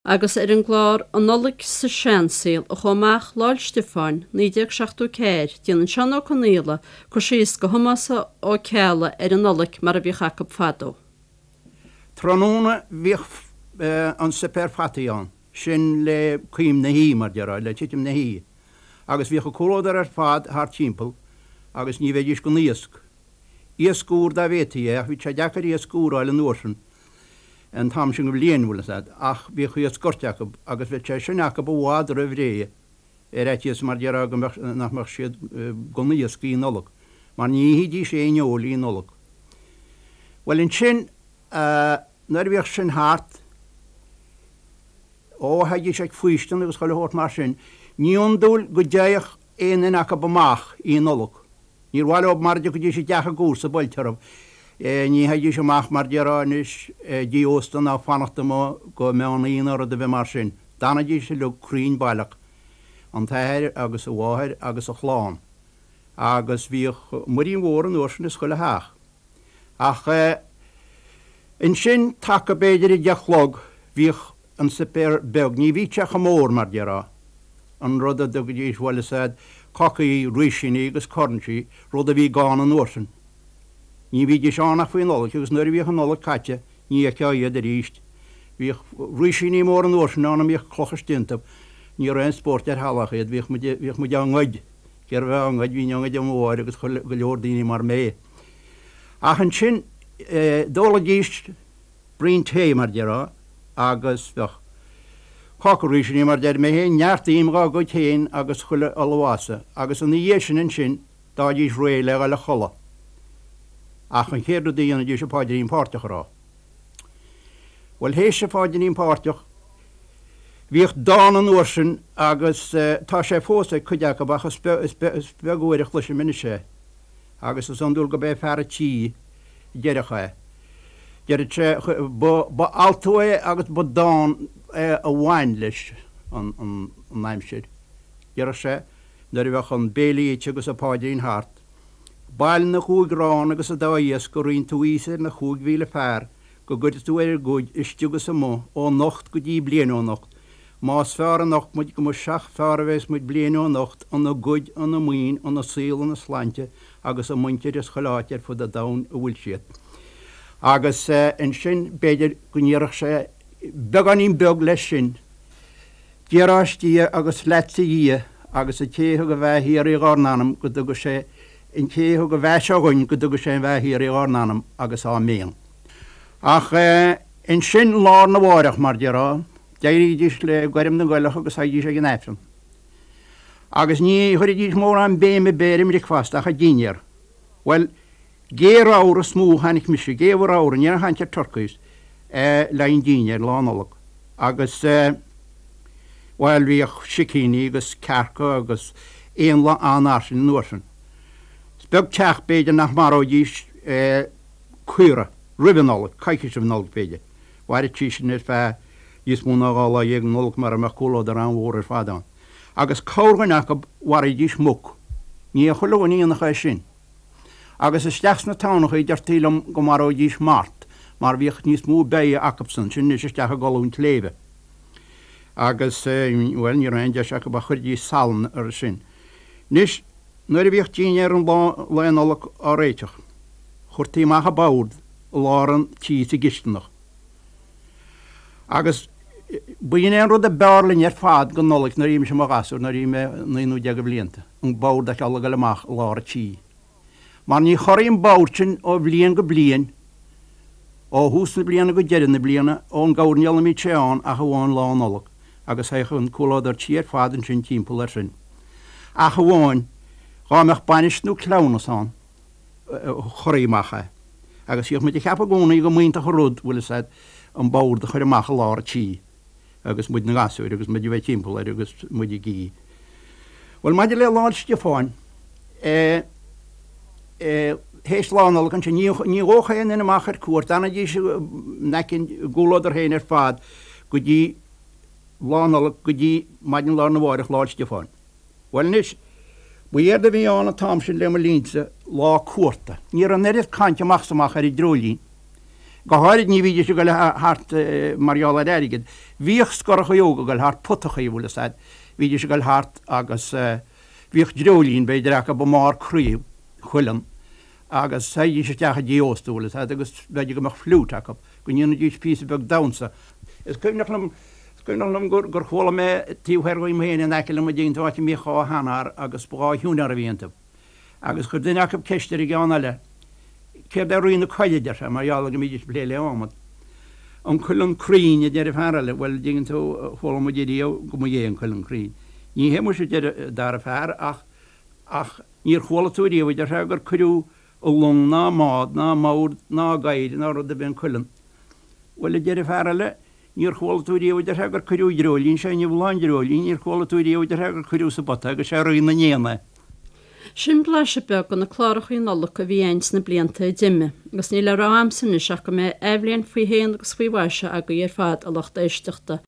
Agus ar an gclár An Nollaig sa Seansaol a chuaigh amach Lá 'le Stiofáin, 1974, déanann Seán Ó Conaola cur síos do Thomás Ó Ceallaigh ar an Nollaig mar a bhíodh acu fadó. Tráthnóna bhíodh an suipéar fataí ann, sin le coim na hoíche, mar déarfá, le titim na hoíche, agus bhíodh an comhluadar ar fad thart timpeall agus ní bheidís gan iasc. Iasc úr dá bhféadfaí é, ach bhí sé deacair iasc úr a fháil an uair sin. an t-am sin den bhliain, bhfuil fhios a'd, ach bhíodh iasc goirt acu agus bheadh sé sin acu i bhfad roimh ré ar fhaitíos mar déarfá go mbeadh, nach mbeadh siad gan iasc Oíche Nollag, mar ní ithidís aon fheoil Oíche Nollag. Bhuel ansin, nuair a bhíodh sin thart, ó, théidís ag faoistin agus chuile shórt mar sin, ní iondúil go dtéadh aon duine acu amach Oíche Nollag. Níor mhaith leo mara dtiocfaidís i dteach a gcomharsa buailte orthu. Ní théidís amach mar déarfá anois dtí ósta ná fanacht amuigh go meán oíche ná rud ar bith mar sin. D'fhanaidís uilig cruinn baileach, an t-athair agus a mháthair agus a chlann. Agus bhíodh muirín mhór an uair sin ins chuile theach. Ach ansin taca b'fhéidir a deich a chlog bhíodh an suipéar beag, ní bhíodh sé chomh mór mar déarfá, an rud a dtugaidís bhuel is ea cácaí, rísíní agus cornsí, rud a bhí gann an uair sin. Ní bhídís ann ach faoi Nollaig agus nuair a bhíodh an Nollaig caite ní fheicfeá iad arís. Bhíodh rísíní móra an uair sin ann a mbíodh clocha istigh iontu. Ní raibh aon spórt ar thalamh iad, bhíodh muid, bhíodh muid á ngoid, cérbh a bheith á ngoid, bhínn á ngoid ó mo mháthair agus chuile, go leor daoine mar mé. Ach ansin d'ólaidís braon tae, mar déarfá, agus bheadh cáca rísíní, mar deir mé féin, neart im dhá gcuid féin agus chuile ullmhasa, agus ina dhiaidh sin ansin d'fhaighidís réidh le dhul a chodladh. Ach an chéad rud a dhéanfaidís an paidrín páirteach a rá. Bhuel, théis an phaidrín páirteach, bhíodh dán an uair sin agus tá sé fós ag cuid acu ach is beag uair a chloisim anois é. Agus is iondúil gurb é fear a' tí a deireadh é. Deireadh sé, ba altú é agus ba dán é a bhain leis an aimsir. Deireadh sé, nuair a bheadh an béile ite agus an paidrín thart, Bail na gcúig arán agus an dá iasc a roinn tú thíos ar na 5,000 fear go gcuire tú ar a gcuid istigh is amuigh ó anocht go dtí bliain ó anocht, Más fearr anocht muid go mba seach fearr a bheas muid bliain ó anocht, ina gcuid, ina maoin, ina saol, ina slainte agus a muintir is chuile áit ar fud an domhain a bhfuil siad. Agus ansin b'fhéidir go ndéarfadh sé beagáinín beag leis sin, Dia Dia agus leatsa a Dhia agus an té a thug an bheatha shíoraí dhár n-anam go dtuga sé an té a thug an bheatha seo dhuinn go dtuga sé an bheatha shíoraí dhár n-anam agus áiméan. Ach ansin lá arna mháireach, mar déarfá, D'éirídís le goirm na gcoileach agus théidís ag an Aifreann. Agus ní chuiridís mórán béim ar bith ar an mbricfeasta ach an dinnéar. Bhuel, gé ramhar is mó a chonaic mise, gé ramhar, ní raibh aon chaint ar turkeys, le haghaidh an dinnéir, Lá Nollag. Agus, bhuel, bhíodh sicíní agus cearca agus éanlaith an-fhairsing an uair sin. Is beag teach, b'fhéidir, nach maróidís caora roimh an Nollaig, coicís roimh an Nollaig, b'fhéidir. Mhaireadh sí sin ar feadh níos mó ná 12 lá Nollag mara mbeadh comhluadar an-mhór ar fad ann. Agus corrdhuine acu mharaídís muc. Ní ag chuile dhuine a dhéanfadh é sin. Agus isteach sna tamhnachaí deirtí liom go maróidís mart mar bhíodh níos mó beidhe acubsan, sin anois isteach i gcolún tsléibhe. Agus, bhuel, ní raibh aon deis acu ach chuiridís salann air sin. Anois, nuair a bhíodh dinnéar an lae Nollag á réiteach, chuirtí amach an bord i lár an tí sa gcisteanach. Agus b'in é an rud a b'fhearr linn ar fad don Nollaig nuair a bhí mise i mo ghasúr, nuair a bhí mé naoi nó deich de bhlianta, an bord a fheiceáil ag goil amach i lár an tí. Mar ní chorraigh an bord sin ó bhliain go bliain, ó thús na bliana go deireadh na bliana, ón gcoirnéal a mbíodh sé ann ach amháin Lá Nollag, agus théadh an comhluadar tí ar fad ansin timpeall air sin. Ach amháin dhá mbeadh bainis nó cleamhnas ann. chorraí amach é. Agus bhíodh muid ag ceapadh i gcónaí go mb'iontach an rud, bhfuil fhios a'd, an bord a chur amach i lár an tí agus muid 'na ngasúir agus muid a bheith timpeall air agus muid ag ithe. Bhuel, maidir le Lá 'le Stiofáin, eh, eh, théis Lá Nollag ansin, ní, ní ghabhfadh aon duine amach ar cuairt, d'fhanaidís in aice an gcomhluadar féin ar fad go dtí Lá Nollag, go dtí maidin lá arna mháireach, Lá 'le Stiofáin. Bhuel anois, ba éard a bhí ann an t-am sin le mo linnse, lá cuarta. Ní raibh an oiread cainte amach is amach ar an dreoilín. Go háirid ní bhídís ag goil thart mar gheall ar airgead. Bhíodh scorachaí óga ag goil thart, putachaí, bhfuil fhios a'd. Bhídís ag goil thart agus bhíodh dreoilín b'fhéidir acu i mbarr craobh cuileann agus théidís isteach i dtigh ósta, bhfuil fhios a'd, agus b'fhéidir go mbeadh fliúit acu, go ndéanfaidís píosa beag damhsa. Is cuimhneach liom, is cuimhneach liom gur, gur chuala mé taobh thoir dhíom féin in aice liom an dtuigeann tú, áit a mbíodh dhá sheanfhear agus ba dhá shiúinéir a bhí iontu. Agus chuir duine acu ceist ar an gceann eile, Céard é Rí na Coille, a deir sé, mar gheall ar go mbídís ag plé le adhmad. An cuileann cruinn, a deir an fear eile. Bhuel, an dtuigeann tú, chuala muid ariamh go mba é an cuileann cruinn. Ní hé muise, a deir an dara fear, ach, ach níor chuala tú ariamh, a deir sé, gur cuireadh i long ná i mbád ná i mbord ná i gcadhair ná rud ar bith an cuileann. Bhuel, a deir an fear eile, Níor chuala tú riamh, a deir sé, gur cuireadh dreoilín, sé inniu lá an dreoilín, níor chuala tú riamh, a deir sé, gur cuireadh sa bpota agus sé rí na n-éan é. Sin blaiseadh beag de na clárachaí Nollag a bhí a'inn sna blianta a d'imigh, agus níl le rá a'msa anois ach go mbeidh athbhliain faoi shéan agus faoi mhaise agaibh ar fad, a lucht éisteachta.